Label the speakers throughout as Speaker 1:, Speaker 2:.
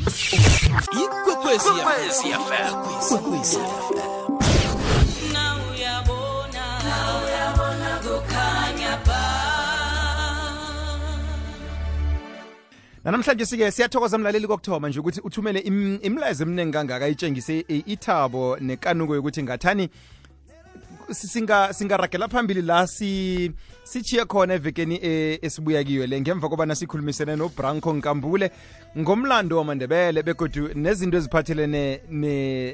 Speaker 1: Ikwekwezi FM.
Speaker 2: Now uyabona kukhanya ba.
Speaker 3: Namhlanje sike siyathokoza mlaleli kokuthoma nje ukuthi uthumele imlayezo eminingi kangaka itshengise ithabo nekanuko yokuthi ngathani singaragela phambili la sichiya khona evekeni esibuya kiyo le ngemva kobana sikhulumisene noBranko Nkambule ngomlando wamaNdebele begodu nezinto eziphathelene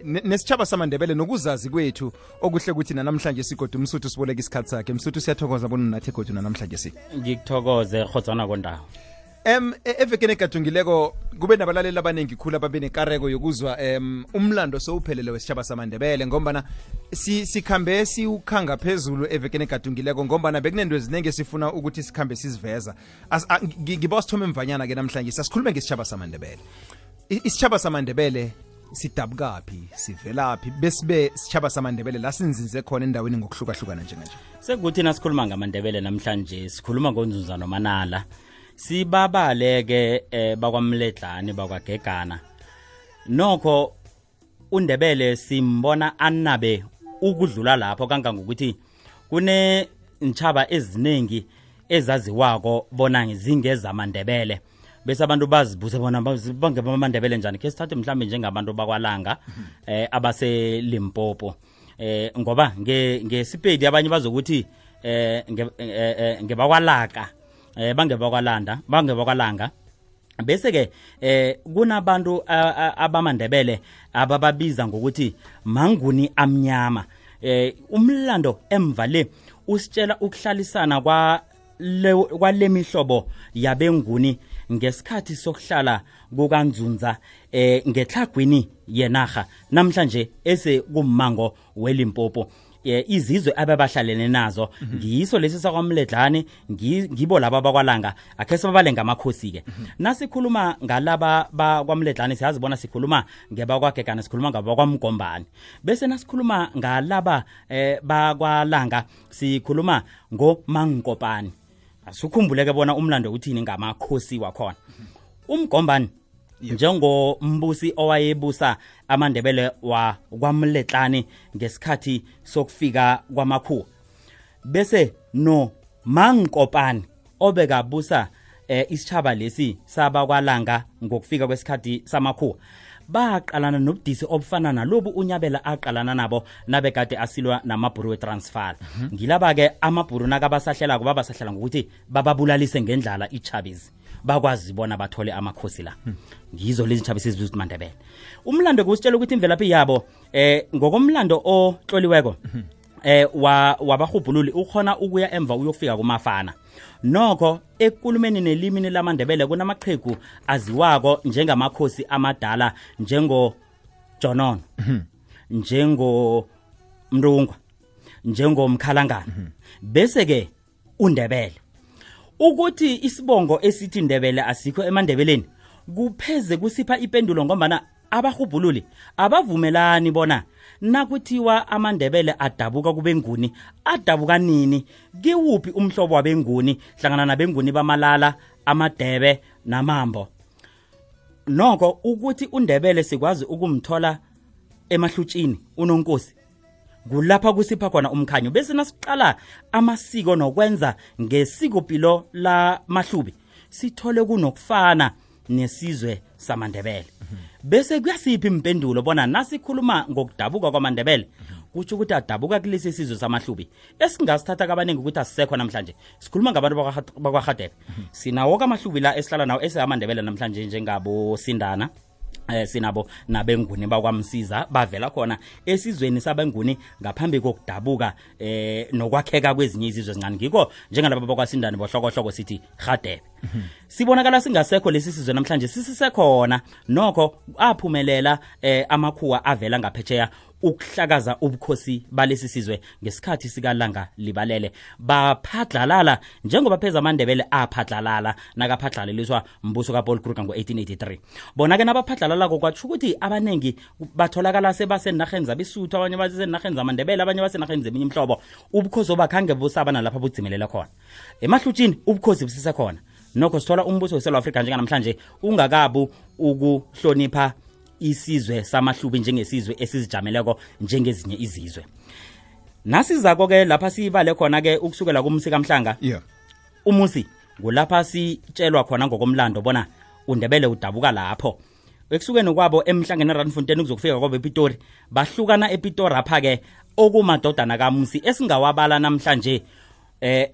Speaker 3: nesitshaba samaNdebele nokuzazi kwethu okuhle ukuthi namhlanje sigodu Msuthu siboleka isikhatsi sakhe. Msuthu siyathokoza bona nathi godu namhlanje
Speaker 4: ngikuthokoze khotsana kondawo.
Speaker 3: Evekeni egadungileko kube nabalaleli abanengi khulu ababe nekareko yokuzwa umlando sowuphelele wesitshaba samaNdebele ngombana sikhambe siukhanga phezulu evekeni egadungileko ngombana bekunento ezinenge sifuna ukuthi sikhambe siziveza. Ngiba sithome mvanyana ke namhlanje sasikhulume ngesitshaba samaNdebele. Isitshaba samaNdebele sidabukaphi sivelaphi besibe isitshaba samaNdebele la sinzinze khona endaweni ngokuhlukahlukana njenganje.
Speaker 4: Sekuthi nasikhuluma ngamaNdebele namhlanje sikhuluma ngonzunza nomanala. Sibabaleke bakwamledlani bakwagegana nokho uNdebele simbona anabe ukudlula lapho kangangokuthi kune ntshaba eziningi ezaziwako bona ngizingeza amaNdebele bese abantu bazibuze bona bangeba amaNdebele njani ke sithathe mhlambe njengabantu bakwalanga abase Limpopo ngoba ngesipedi abanye bazokuthi ngebakwalaka bangebakwalanga bese ke kunabantu abamaNdebele abababiza ngokuthi manguni amnyama. Umlando emvale usitshela ukuhlalisana kwale mihlobo yabenguni ngesikhathi sokuhlala kukanzunza ngetlhagwini yenaga namhlanje ese kummango weLimpopo. Izizwe ababahlalene nazo ngiyiso lesi sakwamledlani ngibo laba bakwalanga akhe sibabalenga amakhosi ke nasikhuluma ngalaba bakwamledlani siyazibona sikhuluma ngebakwagegana sikhuluma ngabakwamgombani bese nasikhuluma ngalaba bakwalanga sikhuluma ngoMangkopani. Asukhumbuleke bona umlando uthini ngamakhosi wakhona. Umgombani njengombusi owayebusa amaNdebele wa kwamledlani ngesikhathi sokufika kwamakhuwa bese no Mangkopani obekabusa isitshaba lesi sabakwalanga ngokufika kwesikhathi samakhuwa baqalana nobudisi obufana nalobu uNyabela aqalana nabo nabekade asilwa namabhuru weTransvaal. Ngilaba ke amabhuru nakabasahlela kuba basahlela ngokuthi bababulalise ngendlala iChabizi bakwazi bona bathole amakhosi la. Ngizo lezi ntshaba sizibuza uMandebele. Umlando kusitshela ukuthi imvelaphi yabo ngokomlando ohloliweko wabahubhululi ukhona ukuya emva uyofika kumafana. Nokho ekulumeni nelimini lamaNdebele kunamaqhegu aziwako njengamakhosi amadala njengo Jonono njengo Mrungwa njengo Mkhalangana bese ke uNdebele ukuthi isibongo esithi Ndebele asikho emaNdebeleni kupheze kusipha ipendulo ngombana abahubhululi abavumelani bona nakuthiwa amaNdebele adabuka kubenguni adabuka nini kiwuphi umhlobo wabenguni hlangana nabenguni bamalala amadebe namambo. Nokho ukuthi uNdebele sikwazi ukumthola emahlutshini unonkosi kulapha kusipha khona umkhanyo bese nasiqala amasiko nokwenza ngesikopilo la Mahlubi sithole kunokufana nesizwe samaNdebele. Bese kuyasiphi impendulo bona nasikhuluma ngokudabuka kwamaNdebele kuthi ukuthi adabuka kulesi sizwe saMahlubi esingasithatha kabaningi ukuthi asisekho namhlanje. Sikhuluma ngabantu bakwaGadebe sinawo kaMahlubi la esihlala nawo esamaNdebele namhlanje njengabo Sindana sinabo nabenguni bakwamsiza bavela khona esizweni sabenguni ngaphambi kokudabuka nokwakheka kwezinye izizwe ezincane ngiko njengalabo bakwaSindana bohlokohloko sithi Gadebe. Sibonakala singasekho lesi sizwe namhlanje sisisekhona nokho aphumelela amakhuwa avela ngaphetsheya ukuhlakaza ubukhosi balesi sizwe ngesikhathi sikalanga libalele baphadlalala njengoba pheza amaNdebele aphadlalala nakaphadlaleliswa mbuso kaPaul Kruger ngo1883. Bona ke nabaphadlalala kokwatsho ukuthi abanengi batholakala sebasenarheni zabisuthu abanye basenarheni zamaNdebele abanye basenarheni zeminye imhlobo ubukhosi obakhange busaba nalapha budzimelela khona emahlutshini ubukhosi busisekhona nokho sithola umbuso weSouth Africa njengamhlanje ungakabu ukuhlonipha isizwe samahlubi njengesizwe esizijameleko njengezinye izizwe. Nasizako ke lapha sibale khona ke ukusukela kumsika Mhlanga.
Speaker 3: Yeah.
Speaker 4: Umusi kulapha sitshelwa khona ngokomlando bona uNdebele udabuka lapho. Ekusukeni kwabo emhlangeni eRandfontein ukuzofika kwabo ePitori bahlukana ePitori apha ke okumadodana kaMusi esingawabala namhlanje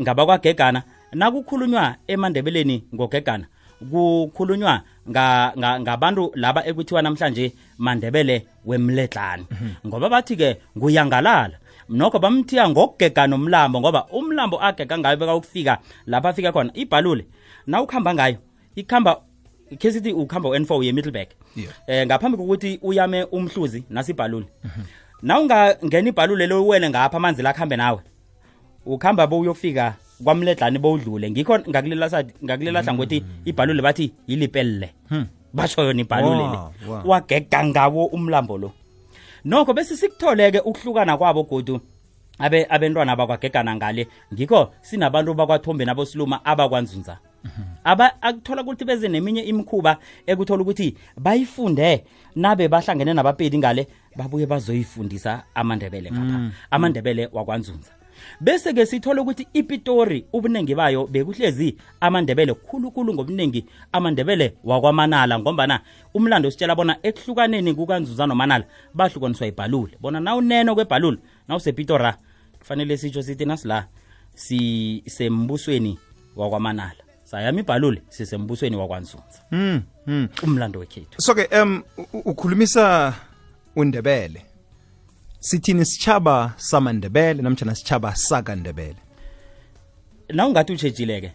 Speaker 4: ngaba kwaGegana nakukhulunywa eMandebeleni ngoGegana kukhulunywa ngabantu laba ekuthiwa namhlanje Mandebele wemledlana ngoba bathi ke nguyangalala nokho bamthiya ngokugegana umlambo ngoba umlambo agega ngayo beka ukufika lapha afika khona ibhalule na ukhamba ngayo ikhamba kesithi ukhamba u-N4 ye Middleburg ngaphambi kokuthi uyame umhluzi nasibhalule na ungangena ibhalule lo uwele ngapha amanzi la khambe nawe ukhamba bo uyofika kwamledlani bowudlule ngikho ngakulela hlangothi ibhalule bathi yilipelle basho yona ibhalule le wagega ngawo umlambo lo nokho bese sikutholeke ukuhlukana kwabo godu abentwana abakwagegana ngale ngikho sinabantu bakwaThombe naboSiluma abakwanzunza akuthola ukuthi beze neminye imikhuba ekuthola ukuthi bayifunde nabe bahlangene nabapedi ngale babuye bazoyifundisa amandebele ngapha amandebele wakwanzunza bese ke sithola ukuthi iPitori ubunengi bayo bekuhlezi amandebele khulukhulu ngobunengi amandebele wakwaManala ngombana umlando sitshela bona ekuhlukaneni kukanzunza noManala bahlukaniswa ibhalule bona na uneno kwebhalule na usePitora kufanele sitsho sithi nasila sembusweni wakwaManala sayami ibhalule sisembusweni wakwanzunza umlando wekhethu
Speaker 3: so ke ukhulumisa uNdebele sithini sichaba samandebele namtjana sichaba sakandebele
Speaker 4: na ungathi utshejileke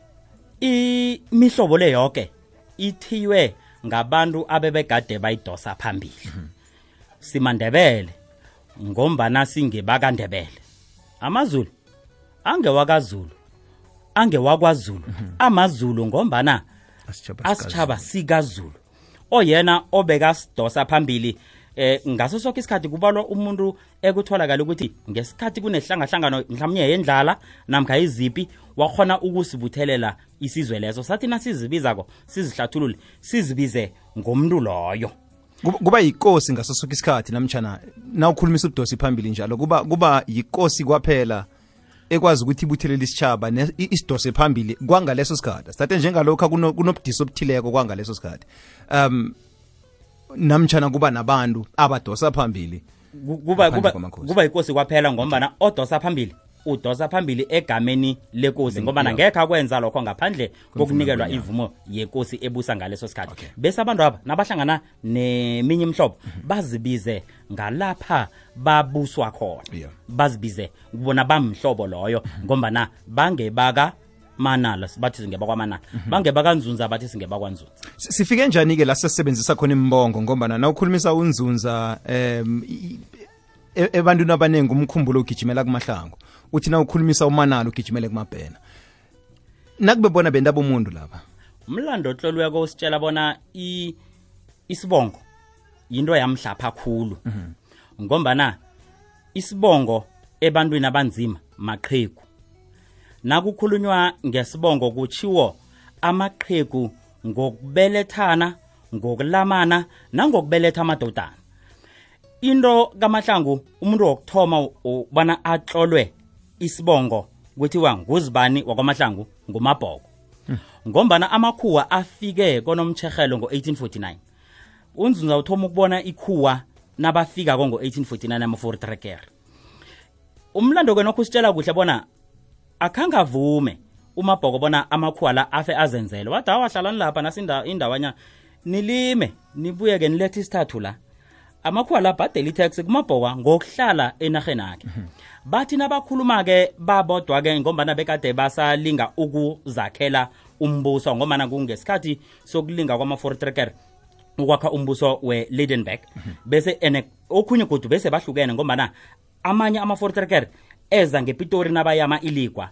Speaker 4: imihlobo le yonke ithiwe ngabantu abebegade bayidosa phambili simandebele ngombana singebakandebele amazulu angewakazulu angewakwaZulu amazulu ngombana asichaba sikaZulu oyena obeka sidosa phambili ngaso sonke isikhathi kubalwa umuntu ekutholakala ukuthi ngesikhathi kunehlangahlangano mhlawumnye yendlala namkha izipi wakhona ukusibuthelela isizwe leso sathi nasizibizako sizihlathulule sizibize ngomuntu loyo
Speaker 3: kuba yikosi ngaso sonke isikhathi namtjana na ukhulumisa udosi phambili njalo kuba yikosi kwaphela ekwazi ukuthi ibuthelela isichaba isidose phambili kwangaleso sikhathi sathe njengalokho kunobudisi obuthileko kwangaleso sikhathi namtjana kuba nabantu abadosa phambili
Speaker 4: kuba ikosi kwaphela ngombana odosa phambili udosa phambili egameni lekosi ngoba ngeke akwenza lokho ngaphandle kokunikelwa ivumo yekosi ebusa ngaleso sikhathi bese abantu aba nabahlangana neminye imhlobo bazibize ngalapha babuswa khona bazibize kubona bamhlobo loyo ngoba bangebaka Manala bathi singeba kwaManala bangebakanzunza bathi singeba kwanzunza
Speaker 3: sifike njani ke la sesebenzisa khona imbongo ngoba na ukhulumisa unzunza ebantwini abanengi umkhumbulo ugijimela kuMahlangu uthi na ukhulumisa uManala ugijimele kuMabhena nakube bona bendaba umuntu lapha
Speaker 4: umlando ohlolweko usitshela bona isibongo yinto yamhlapha kakhulu ngombana isibongo ebantwini abanzima maqhegu nakukhulunywa ngesibongo kuchiwo amaqhegu ngokubelethana ngokulamana nangokubeletha amadodana into kaMahlangu umuntu wokuthoma ubana atlolwe isibongo kuthiwa nguzibani wakwaMahlangu nguMabhoko ngombana amakhuwa afike konomtshegelo ngo1849 unzunza uthoma ukubona ikhuwa nabafika ngo1849 ama-43 umlando kwenokho usitshela kuhle bona akhangavume uMabhoko bona amakhuwa la afe azenzele wathi awahlalani lapha nasinda indawanya nilime nibuye ke nilethe isithathu la amakhuwa la bhadela itax kuMabhoko ngokuhlala enarheni yakhe bathi nabakhuluma ke babodwa ke ngombana bekade basalinga ukuzakhela umbuso ngombana kungesikhathi sokulinga kwama-43 ukwakha umbuso we-Lydenburg bese okhunye godu bese bahlukene ngombana amanye ama-43 eza ngePitori nabayama iligwa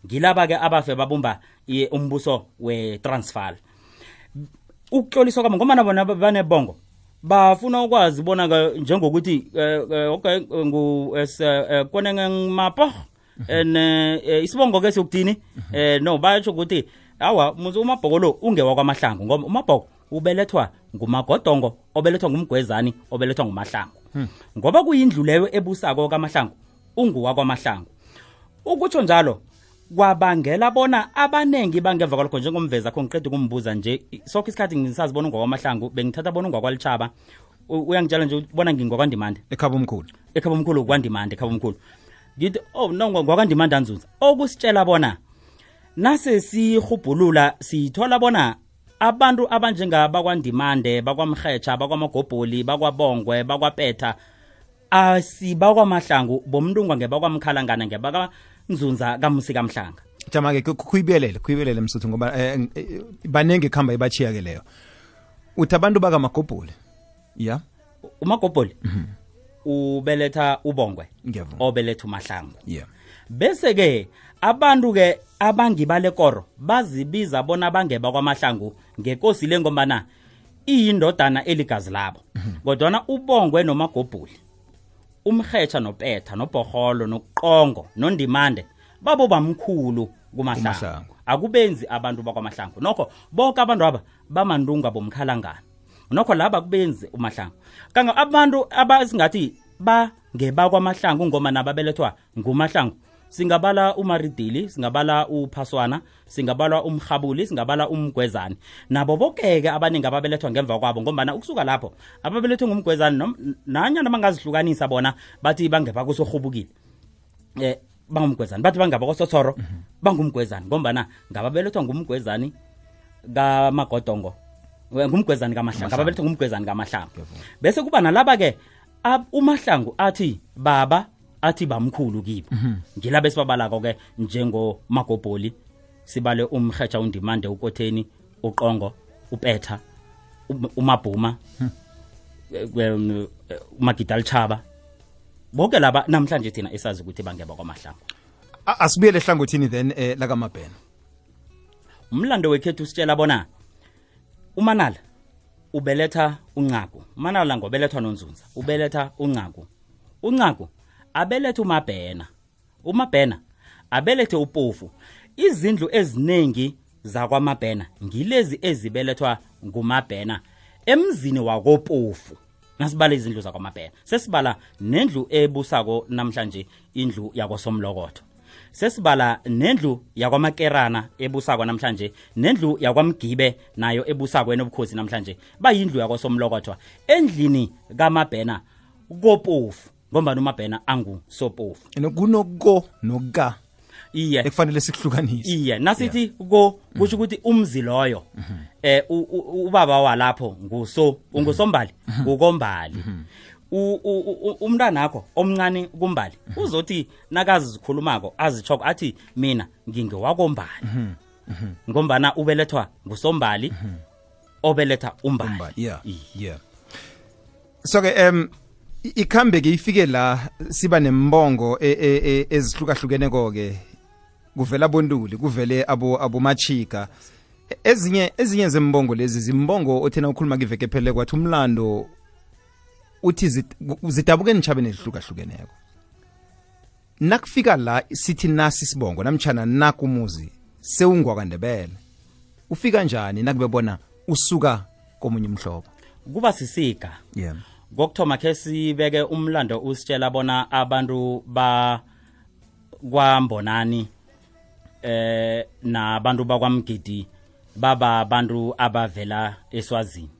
Speaker 4: ngilaba ke abafe babumba umbuso we-Transvaal ukutloliswa kwabo ngoba bona banebongo bafuna ukwazi bona njengokuthi okay konenge mapo isibongo ke sokudini no bayatsho ukuthi awa muzi uMabhoko lo ungewa kwaMahlangu ngoba uMabhoko ubelethwa nguMagodongo obelethwa ngumgwezani obelethwa nguMahlangu ngoba kuyindlu leyo ebusako kaMahlangu unguwa kwaMahlangu ukutsho njalo kwabangela bona abanengi bangeva kwalokho njengomveza kho ngiqeda ukumbuza nje sokho isikhathi ngisazibona ungwakwamahlangu bengithatha bona ungwakwalitshaba uyangitshela nje ubona ngingwakwandimande
Speaker 3: ekhaba omkhulu
Speaker 4: kwandimande ekhaba omkhulu ngithi no ngwakwandimande anzunza okusitshela bona nase sihubhulula sithola bona abantu abanjengaba kwandimande bakwamrhetsha bakwamagobholi bakwabongwe bakwapetha asibakwamahlangu bomntungwa ngebakwamkhalangana ngebaka kamusi kamhlanga
Speaker 3: jama-ke khuyibelele msuthu ngoba banenge khamba ibachiya ke leyo uthi abantu bakamagobholi ya
Speaker 4: umagobholi ubeletha ubongwe obeletha uMahlangu bese ke abantu ke abangibale koro bazibiza bona bangeba kwaMahlangu ngekosi lengombana iyindodana eligazi labo kodwa ubongwe nomagobholi umrhetsha nopetha nobhoholo noqongo nondimande babo bamkhulu kuMahlangu akubenzi abantu bakwaMahlangu nokho bonke abantu aba bamandunga bomkhalangana nokho laba kubenzi uMahlangu kanga abantu abasingathi bangeba kwaMahlangu ngoma nababelethwa nguMahlangu singabala uMaridili singabala uPhaswana singabala uMrhabuli singabala uMgwezani nabo bokeke abaningi ababelethwa ngemva kwabo ngoba ukusuka lapho ababelethwe ngumgwezani nanyana bangazihlukanisa bona bathi bangeba kusohubukile bangumgwezani bathi bangaba kosothoro bangumgwezani ngoba ngababelethwa ngumgwezani kaMagodongo ngumgwezani kaMahlangu ababelethwa ngumgwezani kaMahlangu bese kuba nalaba ke uMahlangu athi baba athi bamkhulu kibo ngilaba esibabalako ke njengo Magobholi sibale umrhetsha undimande uKotheni uqongo upetha uMabhuma uMagidalchaba bonke laba namhlanje thina esazi ukuthi bangeba kwaMahlangu
Speaker 3: asibuyele ehlangothini then lakaMabhena
Speaker 4: umlando wekhethu sitshela bona uManala ubeletha uNcagu uManala ngobelethwa noNzunza ubeletha uNcagu abelethe uMabhena abelethe uPofu izindlu eziningi zakwaMabhena ngilezi ezibelethwa nguMabhena emzini wakoPofu nasibala izindlu zakwaMabhena sesibala nendlu ebusako namhlanje indlu yakwaSomlokotho sesibala nendlu yakwamakerana ebusako namhlanje nendlu yakwamgibe nayo ebusako enobukhosi namhlanje bayindlu yakwaSomlokotho endlini kaMabhena koPofu ngoba uMabhena anguSoPofu
Speaker 3: kunoko noka
Speaker 4: iye
Speaker 3: ekufanele sikuhlukanise
Speaker 4: iye nasithi kusho ukuthi umzi loyo ubaba walapho ungusombali ukombali umntanakho omncane kumbali uzothi nakazi zikhulumako azichoko athi mina ngingewakombali ngombana ubelethwa ngusombali obeletha umbali
Speaker 3: yeah so ke ikhambe ke ifike la siba nembongo ezihlukahlukeneko ke kuvela bontuli kuvele abomachika ezinye zembongo lezi zimbongo othena ukhuluma kiveke phele kwathi umlando uthi zidabuke nitshabeni ezihlukahlukeneko nakufika la sithi nasi sibongo namtjhana nakumuzi sewungwakandebele ufika njani nakube bona usuka komunye umhlobo
Speaker 4: kuba sisika ngokuthoma ke sibeke umlando usitshela bona abantu kwambonani nabantu bakwamgidi baba abantu abavela eSwazini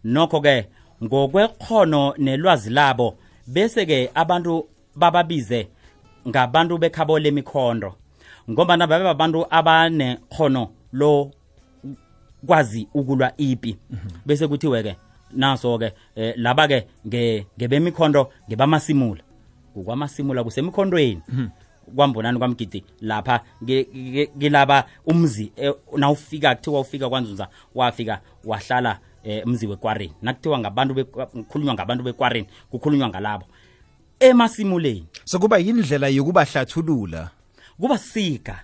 Speaker 4: nokho ke ngokwekhono nelwazi labo bese ke abantu bababize ngabantu bekhabo lemikhondo ngoba nababe abantu abanekhono lo kwazi ukulwa ipi bese kuthiwe ke naso ke laba ke ngebemikhondo ngebamasimula kukwamasimula kusemikhondweni kwambonani kwamgidi lapha ngilaba umzi nawufika kuthiwa ufika kwaNzunza wafika wahlala umzi weKwareni nakuthiwa ngabantu kukhulunywa ngabantu beKwareni kukhulunywa ngalabo emasimuleni
Speaker 3: so kuba yindlela yokubahlathulula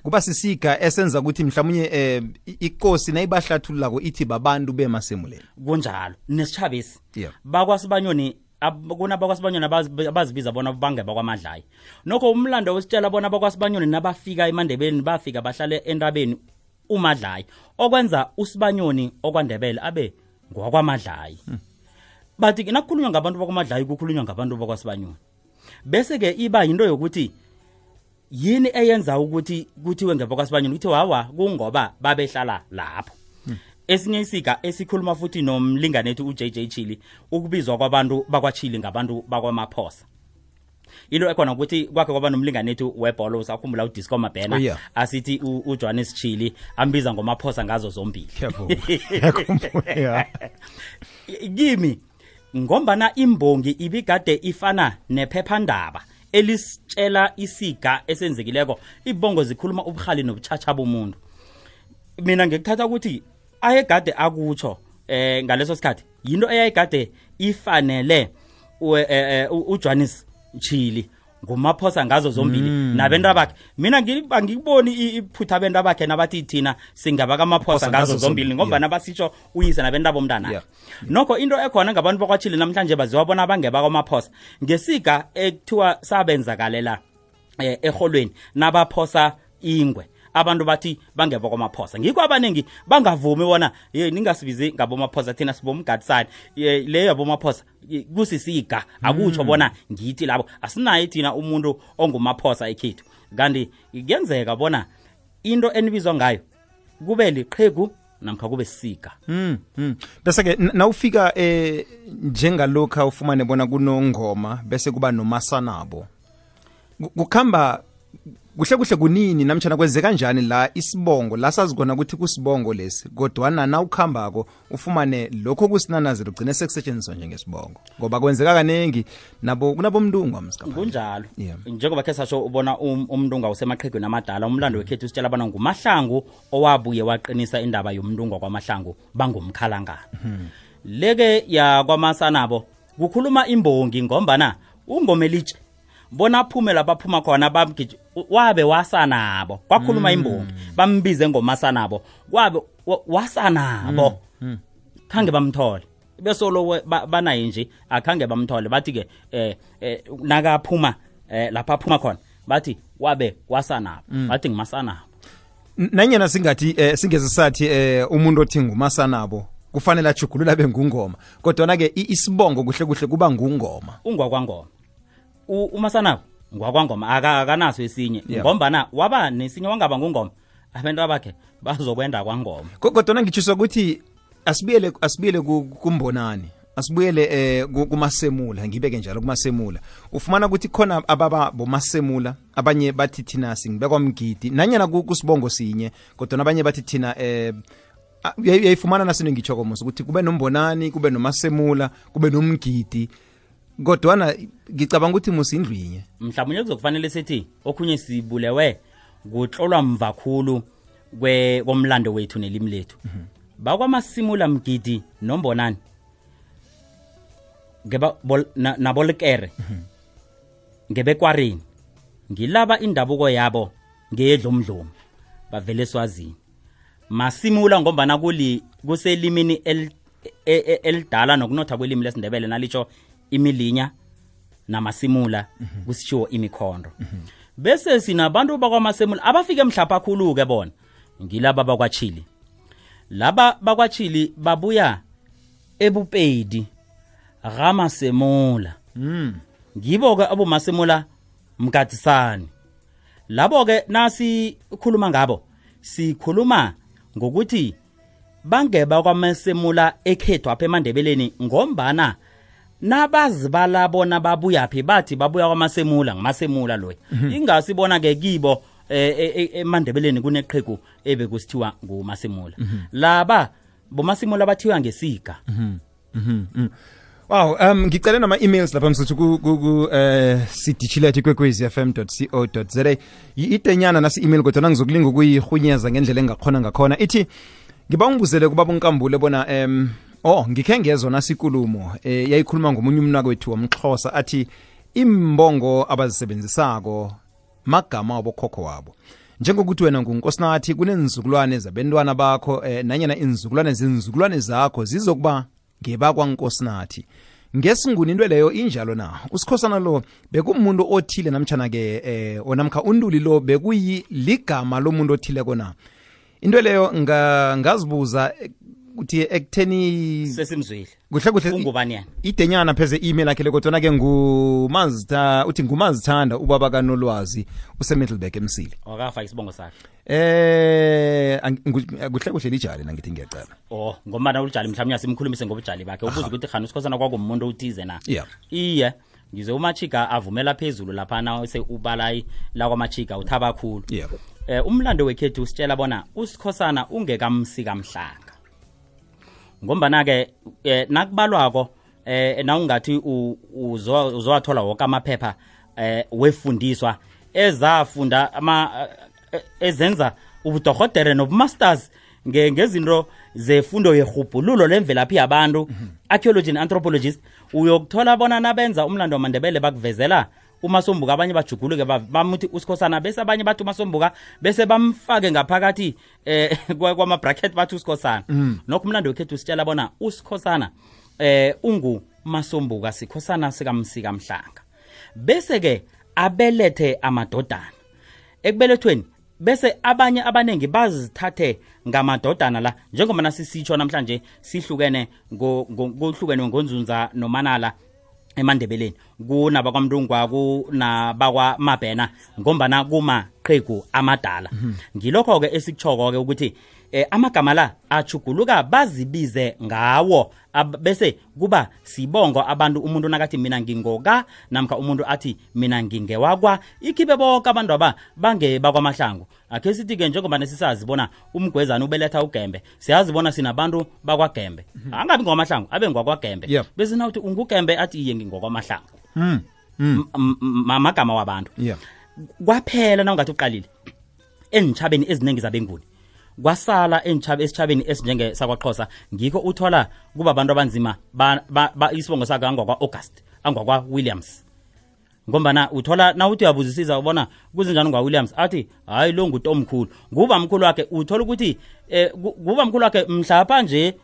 Speaker 4: kuba
Speaker 3: sisika esenza ukuthi mhlawumnye ikosi nayibahlathululako ithi babantu bemasemuleni
Speaker 4: kunjalo nesichabisi bakwasibanyoni kunabakwasibanyoni abazibiza bona bangeba kwamadlayi nokho umlando wesitshela bona bakwasibanyoni nabafika eMandebeni bafika bahlale entabeni uMadlayi okwenza uSibanyoni okwaNdebele abe ngwakwaMadlayi. Bathi nakukhulunywa ngabantu bakwaMadlayi kukhulunywa ngabantu bakwaSibanyoni. Bese ke iba yinto yokuthi yini eyenza ukuthi kuthiwe ngebakwaSibanyoni kuthi hawa kungoba babehlala lapho. Esinye isika esikhuluma futhi nomlinganethu uJJ Chili ukubizwa kwabantu bakwaChili ngabantu bakwaMaphosa. Into ekhona ukuthi kwakhe kwaba nomlinganethu webhola usakhumbula uDisco Mabhena asithi uJohannes Chili ambiza ngoMaphosa ngazo zombili. Kimi ngombana imbongi ibigade ifana nephephandaba elisitshela isiga esenzekileko ibongo zikhuluma ubukhali nobuchacha bomuntu. Mina ngikuthatha ukuthi ayegade akutsho ngaleso sikhathi yinto eyayigade ifanele uJohannes Chili ngomaphosa ngazo zombili nabentu abakhe. Mina ngikuboni iphutha abantu abakhe nabathi thina singaba kamaphosa ngazo zombili ngoba nabasitsho uyise nabentu abomntana. Nokho into ekhona ngabantu bakwaChili namhlanje baziwabona bangeba kwamaphosa ngesiga ekuthiwa sabenzakalela eholweni nabaphosa ingwe. Abantu bathi bangeba kwamaphosa ngikho abaningi bangavumi bona ningasibizi ngabomaphosa thina sibomgadisani leyo yabomaphosa kusisiga akutsho bona ngithi labo asinayi thina umuntu ongumaphosa ekhethu kanti kuyenzeka bona into enibizwa ngayo kube liqhegu namkha kube sisiga.
Speaker 3: Bese ke nawufika njengalokho ufumane bona kunongoma bese kuba nomasanabo kukhamba kuhle kunini namtjana kwenzeka kanjani la isibongo la sazikona ukuthi kusibongo lesi kodwa na ukhambako ufumane lokho kusinanazelo ugcine sekusetshenziswa njengesibongo ngoba kwenzeka kanengi nabo kunabomndungu amsikapha
Speaker 4: kunjalo. Njengoba ke sasho ubona umndungu usemaqhegweni amadala umlando wekhethu usitshela bana nguMahlangu owabuye waqinisa indaba yomndungu kwaMahlangu bangumkhalangana. Leke ya kwaMasanabo kukhuluma imbongi ngombana ungomelitshe bona aphumela baphuma khona bamgije wabe wasanabo kwakhuluma imbongi bambize ngomasanabo wabe wasanabo khange bamthole bese lo banaye nje akhange bamthole bathi ke nakaphuma lapha aphuma khona bathi wabe wasanabo bathi ngumasanabo.
Speaker 3: Nanyana singathi singeze sathi umuntu othi ngumasanabo kufanele ajugulula bengungoma kodwa na ke isibongo kuhle kuba ngungoma
Speaker 4: ungwakwangoma. uMasanabo ngwakwangoma akanaso esinye ngombana waba nesinye wangaba ngungoma abantu abakhe bazokwenda kwangoma.
Speaker 3: Kodwa ngichiswa ukuthi asibiyele kumbonani asibuyele kumasemula ngibeke njalo kumasemula ufumana ukuthi khona ababa bomasemula abanye bathi thina singibekwa mgidi nanyana kusibongo sinye kodwa abanye bathi thina uyayifumana nasino ngitshoko musu ukuthi kube nombonani kube nomasemula kube nomgidi kodwa ngicabanga ukuthi musindlwinye
Speaker 4: mhlawumnye kuzokufanele sithi okhunye sibulewe kuhlolwa mvakhulu komlando wethu nelimi lethu bakwamasimula mgidi nombonani ngeba nabolekere ngebekwareni ngilaba indabuko yabo ngeyedlomdlomo bavele Swazini masimula ngombana kuselimini elidala nokunotha kwelimi lesindebele nalicho imilinya namasimula kusitsho imikhondo bese sinabantu bakwamasemula abafike emhlapha khulu ke bona ngilaba bakwaChili laba bakwaChili babuya eBupedi Ramasemula ngibo ke abomasemula mgadisani labo ke nasi khuluma ngabo sikhuluma ngokuthi bangeba kwamasemula ekhethu apha eMandebeleni ngombana nabazibala bona babuya phi bathi babuya kwamasemula ngamasemula loyi ingasibona ke kibo eMandebeleni kuneqhegu ebekusithiwa ngumasemula laba bomasemula bathiwa ngesiga.
Speaker 3: Wow, ngicela nama emails lapha msuthu ku cdchile@kwekwezfm.co.za itenyana nasi email kodwa ngizokulinga ukuyihunyeza ngendlela engakhona ngakhona ithi ngiba ngibuzele kuba bonkambule bona ngikhe ngezwe nasikulumo yayikhuluma ngomunye umnaka wethu wamXhosa athi imbongo abazisebenzisako magama abokhokho wabo njengokuthi wena ngunkosinathi kunenzukulwane zabentwana bakho nanyana inzukulwane zakho zizokuba ngebakwankosinathi ngesinguni into leyo injalo na usikhosana lo bekumuntu othile namtjana ke onamkha unduli lo bekuyi ligama lomuntu othile kona into leyo ngazibuza ukuthi ekutheni
Speaker 4: sesimzwile
Speaker 3: kuhle kuhle
Speaker 4: ungubani yena
Speaker 3: idenyana pheze email yakhe kodwa ke ngumazitha uthi ngumazithanda ubaba kaNolwazi useMiddelburg eMsile
Speaker 4: wakafa isibongo sakhe
Speaker 3: kuhle kuhle lijali nangithi ngiyaqala
Speaker 4: ngombana ulijali mhlawumnye simkhulumise ngobujali bakhe ubuza ukuthi khani usikhosana kwakumuntu uthize na iye ngize uMachika avumela phezulu lapha na ubalayi la kwaMachika uthaba kakhulu umlando wekhethu usitshela bona usikhosana ungekamsika mhlanga ngombana ke nakubalwako na ungathi uzowathola wonke amaphepha wefundiswa ezafunda ezenza ubudokotela nobumasters ngezinto zefundo yehubhululo lemvelaphi yabantu archaeology and anthropologist uyokuthola bona nabenza umlando wamandebele bakuvezela uMasombuka abanye bajuguluke bamuthi usikhosana bese abanye bathi uMasombuka bese bamfake ngaphakathi kwama bracket bathi usikhosana nokho umlando wekhethu usitshela bona usikhosana ungu Masombuka sikhosana sikamsika mhlanga bese ke abelethe amadodana ekubelethweni bese abanye abanengi bazithathe ngamadodana la njengoba nasisitsho namhlanje sihlukene ngohlukene ngonzunza nomanala eMandebeleni kunaba kwaMndungwa kunaba Mabhena ngombana kuma qhegu amadala ngilokho ke esikuchoko ke ukuthi amagama la achuguluka bazibize ngawo bese kuba sibongo abantu umuntu nakathi mina ngingoka namkha umuntu athi mina ngingewakwa ikhibe bonke abantu aba bange bakwaMahlangu akhe sithi ke njengoba nesisazi bona umgwezana ubeletha uGembe siyazibona sinabantu bakwaGembe angabi ngwaMahlangu abe ngwakwaGembe bese nawuthi unguGembe athi iye ngingokwaMahlangu amagama wabantu kwaphela nawungathi uqalile enitshabeni eziningi zabenguni kwasala esitshabeni esinjenge sakwaXhosa ngikho uthola kuba abantu abanzima isibongo saka angwa August angwa Williams ngombana uthola na uthi uyabuzisisa ubona kuzinjani ngwa Williams athi hayi lo ngutomkhulu nguba mkhulu wakhe uthola ukuthi kuba mkhulu wakhe mhlapha nje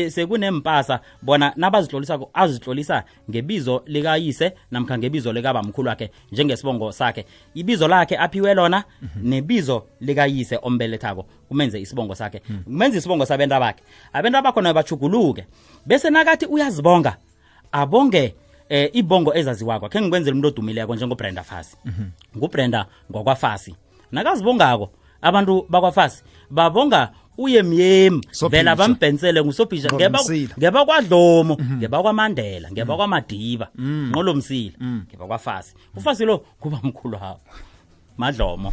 Speaker 4: sekunempasa bona nabazihlolisa azihlolisa ngebizo likayise namkha ngebizo likaba mkhulu wakhe njengesibongo sakhe ibizo lakhe aphiwe lona nebizo likayise ombelethako kumenze isibongo sakhe kumenza isibongo sabenta bakhe abenta bakhona bachuguluke bese nakathi uyazibonga abonge ibongo ezaziwakho khe ngikwenzela umuntu odumileko njengoBrenda Fassie nguBrenda ngokwaFassie nakazibongako abantu bakwaFassie babonga uyemyemi vela bambhensele nguSophisha ngeba kwaDlomo ngeba kwaMandela ngeba kwaMadiba nqolo Msila ngeba kwaFassie uFassie lo kuba mkhulu hawo Madlomo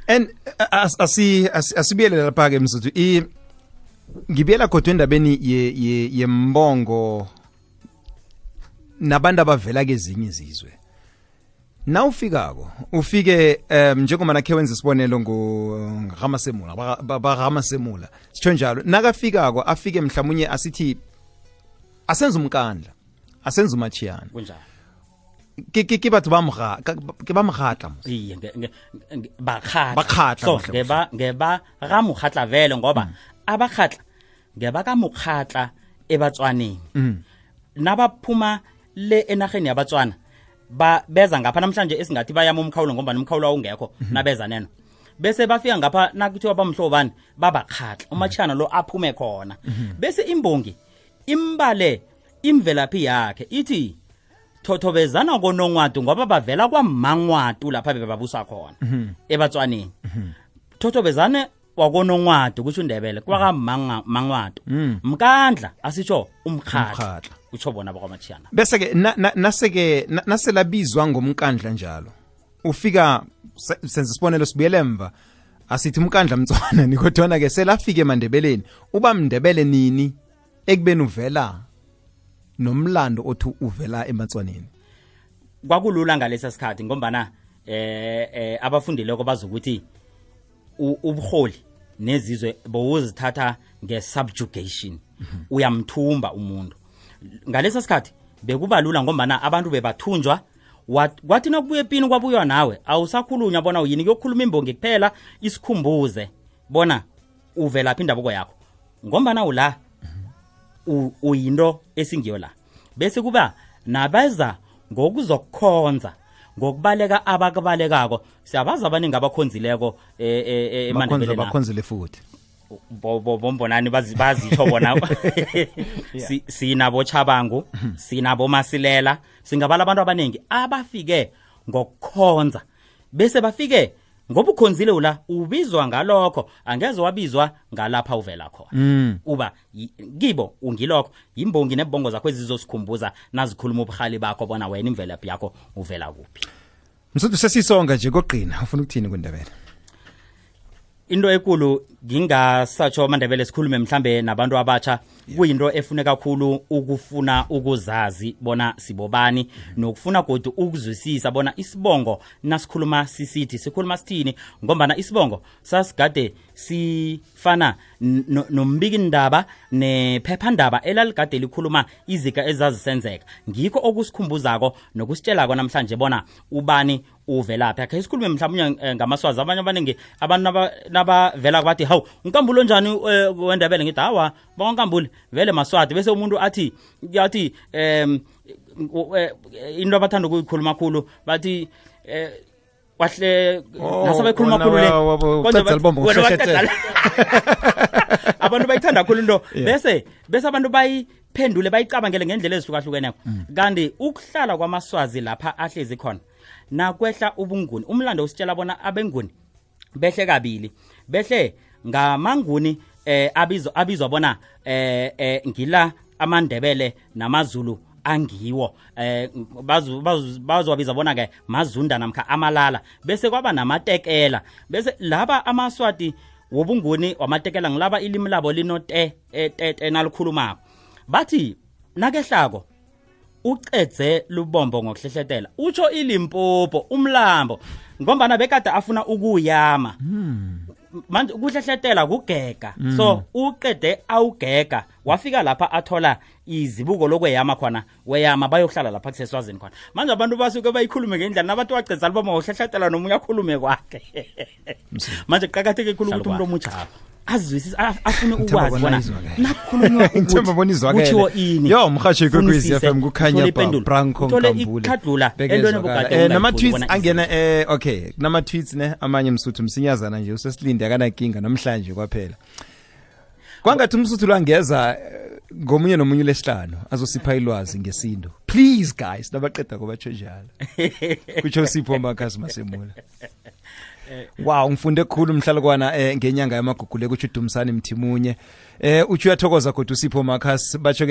Speaker 3: and asibiyele lapha ke msuthu ngibiyela kodwa endabeni yembongo nabantu abavela kezinye izizwe na ufikako ufike njengoba nakhe wenza isibonelo ngoRamasemula baRamasemula sitsho njalo nakafikako afike mhlawumnye asithi asenza umkandla asenza umachiyana
Speaker 4: kunjalo
Speaker 3: ke batho ba mkhatla
Speaker 4: iye bakhatla so ngeba ramukhatla vele ngoba abakhatla ngeba kamukhatla eBatswaneni nabaphuma le enaheni yabatswana beza ngapha namhlanje esingathi bayama umkhawulo ngoba nomkhawulo ungekho nabeza neno bese bafika ngapha nakuthiwa bamhlobani babakhatla umachana lo aphume khona bese imbongi imbale imvelaphi yakhe ithi thothobezana konongwadu ngoba bavela kwaMangwatu lapha bebabusa khona eBatswaneni thothobezane wakonongwadu kusho uNdebele kwaMangwatu mkandla asitsho umkhatla utsho bona bakwaMachiyana
Speaker 3: bese ke naselabizwa ngomkandla njalo ufika senze isibonelo sibuyele emva asithi umkandla Mtswana nikodwana ke selafika eMandebeleni uba Mndebele nini ekubeni uvela nomlando othi uvela eMatswaneni
Speaker 4: kwakulula ngalesa sikhathi ngombana abafundileko bazokuthi ubuholi nezizwe bowuzithatha ngesubjugation uyamthumba umuntu ngalesa sikhathi bekuba lula ngombana abantu bebathunjwa kwathi nokubuye epini kwabuya nawe awusakhulunywa bona uyini kuyokhuluma imbongi kuphela isikhumbuze bona uvela phi indaboko yakho ngombana ula uyinto esingiyo la bese kuba nabeza ngokuzokukhonza ngokubaleka abakubalekako siyabazi abaningi abakhonzileko eMandebele
Speaker 3: bakhonzile futhi
Speaker 4: bombonani bazitsho bona sinabo Chabangu sinabo Masilela singabala abantu abaningi abafike ngokukhonza bese bafike ngoba ukhonzile ula ubizwa ngalokho angeze wabizwa ngalapha uvela khona uba kibo ungilokho imbongi nebongo zakho ezizosikhumbuza nazikhuluma ubukhali bakho bona wena imvelaphi yakho uvela kuphi.
Speaker 3: Msuthu sesisonga nje koqina ufuna ukuthini kuNdebele?
Speaker 4: Into ekulu ngingasatsho aMandebele sikhulume mhlambe nabantu abatsha kuyinto efune kakhulu ukufuna ukuzazi bona sibobani nokufuna godu ukuzwisisa bona isibongo nasikhuluma sisithi sikhuluma sithini ngombana isibongo sasigade sifana nombiki ndaba nephephandaba elaligade likhuluma izika ezazisenzeka ngikho okusikhumbuzako nokusitshelako namhlanje bona ubani uvelaphi akhe sikhulume mhlawumnye ngamaswazi abanye abaningi abantu nabavela bathi hawu uNkambulo njani weNdebele ngithi hawa bonkambule vele maswati bese umuntu athi into abathanda ukuyikhuluma kakhulu bathi wahle nasabekhuluma kakhulu le abantu bayithanda kakhulu into bese abantu bayiphendule bayicabangele ngendlela ezihlukahlukeneko kanti ukuhlala kwamaswazi lapha ahlezi khona nakwehla ubunguni umlando usitshela bona abenguni behle kabili behle ngamanguni abizwa bona ngila aMandebele namaZulu angiwo bazowabiza bona ke mazunda namkha amalala bese kwaba namatekela bese laba amaswati wobunguni wamatekela ngilaba ilimi labo linote nalikhulumako bathi nakehlako ucedze lubombo ngokuhlehletela utsho iLimpopo umlambo ngombana bekade afuna ukuyama manje ukuhlehletela kugega so uqede awugega wafika lapha athola izibuko lokweyama khona weyama bayohlala lapha kuseswazini khona manje abantu basuke bayikhulume ngendlela nabantu wacedza lubombo ngokuhlehletela nomunye akhulume kwakhe manje qhakatheke khulu ukuthi umuntu omutsha azwisisa afune ukwazi bona nakhulunywa ukuthi kuthiwo ini
Speaker 3: yo mhashi kwekwezi FM kukhanya Branko Nkambule nama tweets angena okay nama tweets ne amanye Msuthu msinyazana nje usesilinde akanankinga namhlanje kwaphela kwangathi uMsuthu langeza ngomunye nomunye lesihlanu azosipha ilwazi ngesindo please guys nabaqeda kobatsho njalo kutsho Sipho Makhasi Masemula. Wow ngifunde kukhulu mhlalukwana ngenyanga yamagugule kuthi uDumsani Mthimunye uthi uyathokoza kodwa uSipho Makhasi batsho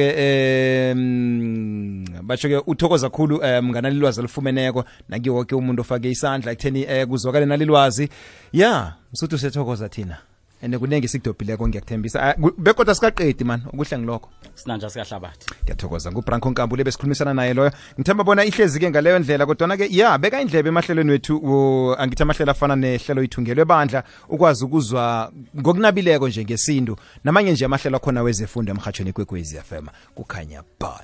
Speaker 3: ke uthokoza kukhulu mngana lilwazi lifumeneko naki wonke umuntu ofake isandla ekutheni kuzwakale nalilwazi yeah Msuthu sethokoza thina ene kunenge sikudobhileko ngiyakuthembisa bekodwa sikaqedi man ukuhle ngilokho
Speaker 4: sinanja sikahlabathi
Speaker 3: ngiyathokoza nguBranko Nkambule besikhulumisana naye loyo ngithemba bona ihlezi ke ngaleyo ndlela kodwa ke yeah beka indlebe emahlelweni wethu angithi amahlelo afana nehlelo ithungelwe bandla ukwazi ukuzwa ngokunabileko nje ngesintu namanye nje amahlelo akhona wezefundo emhathweni kwekwezi FM kukhanya ba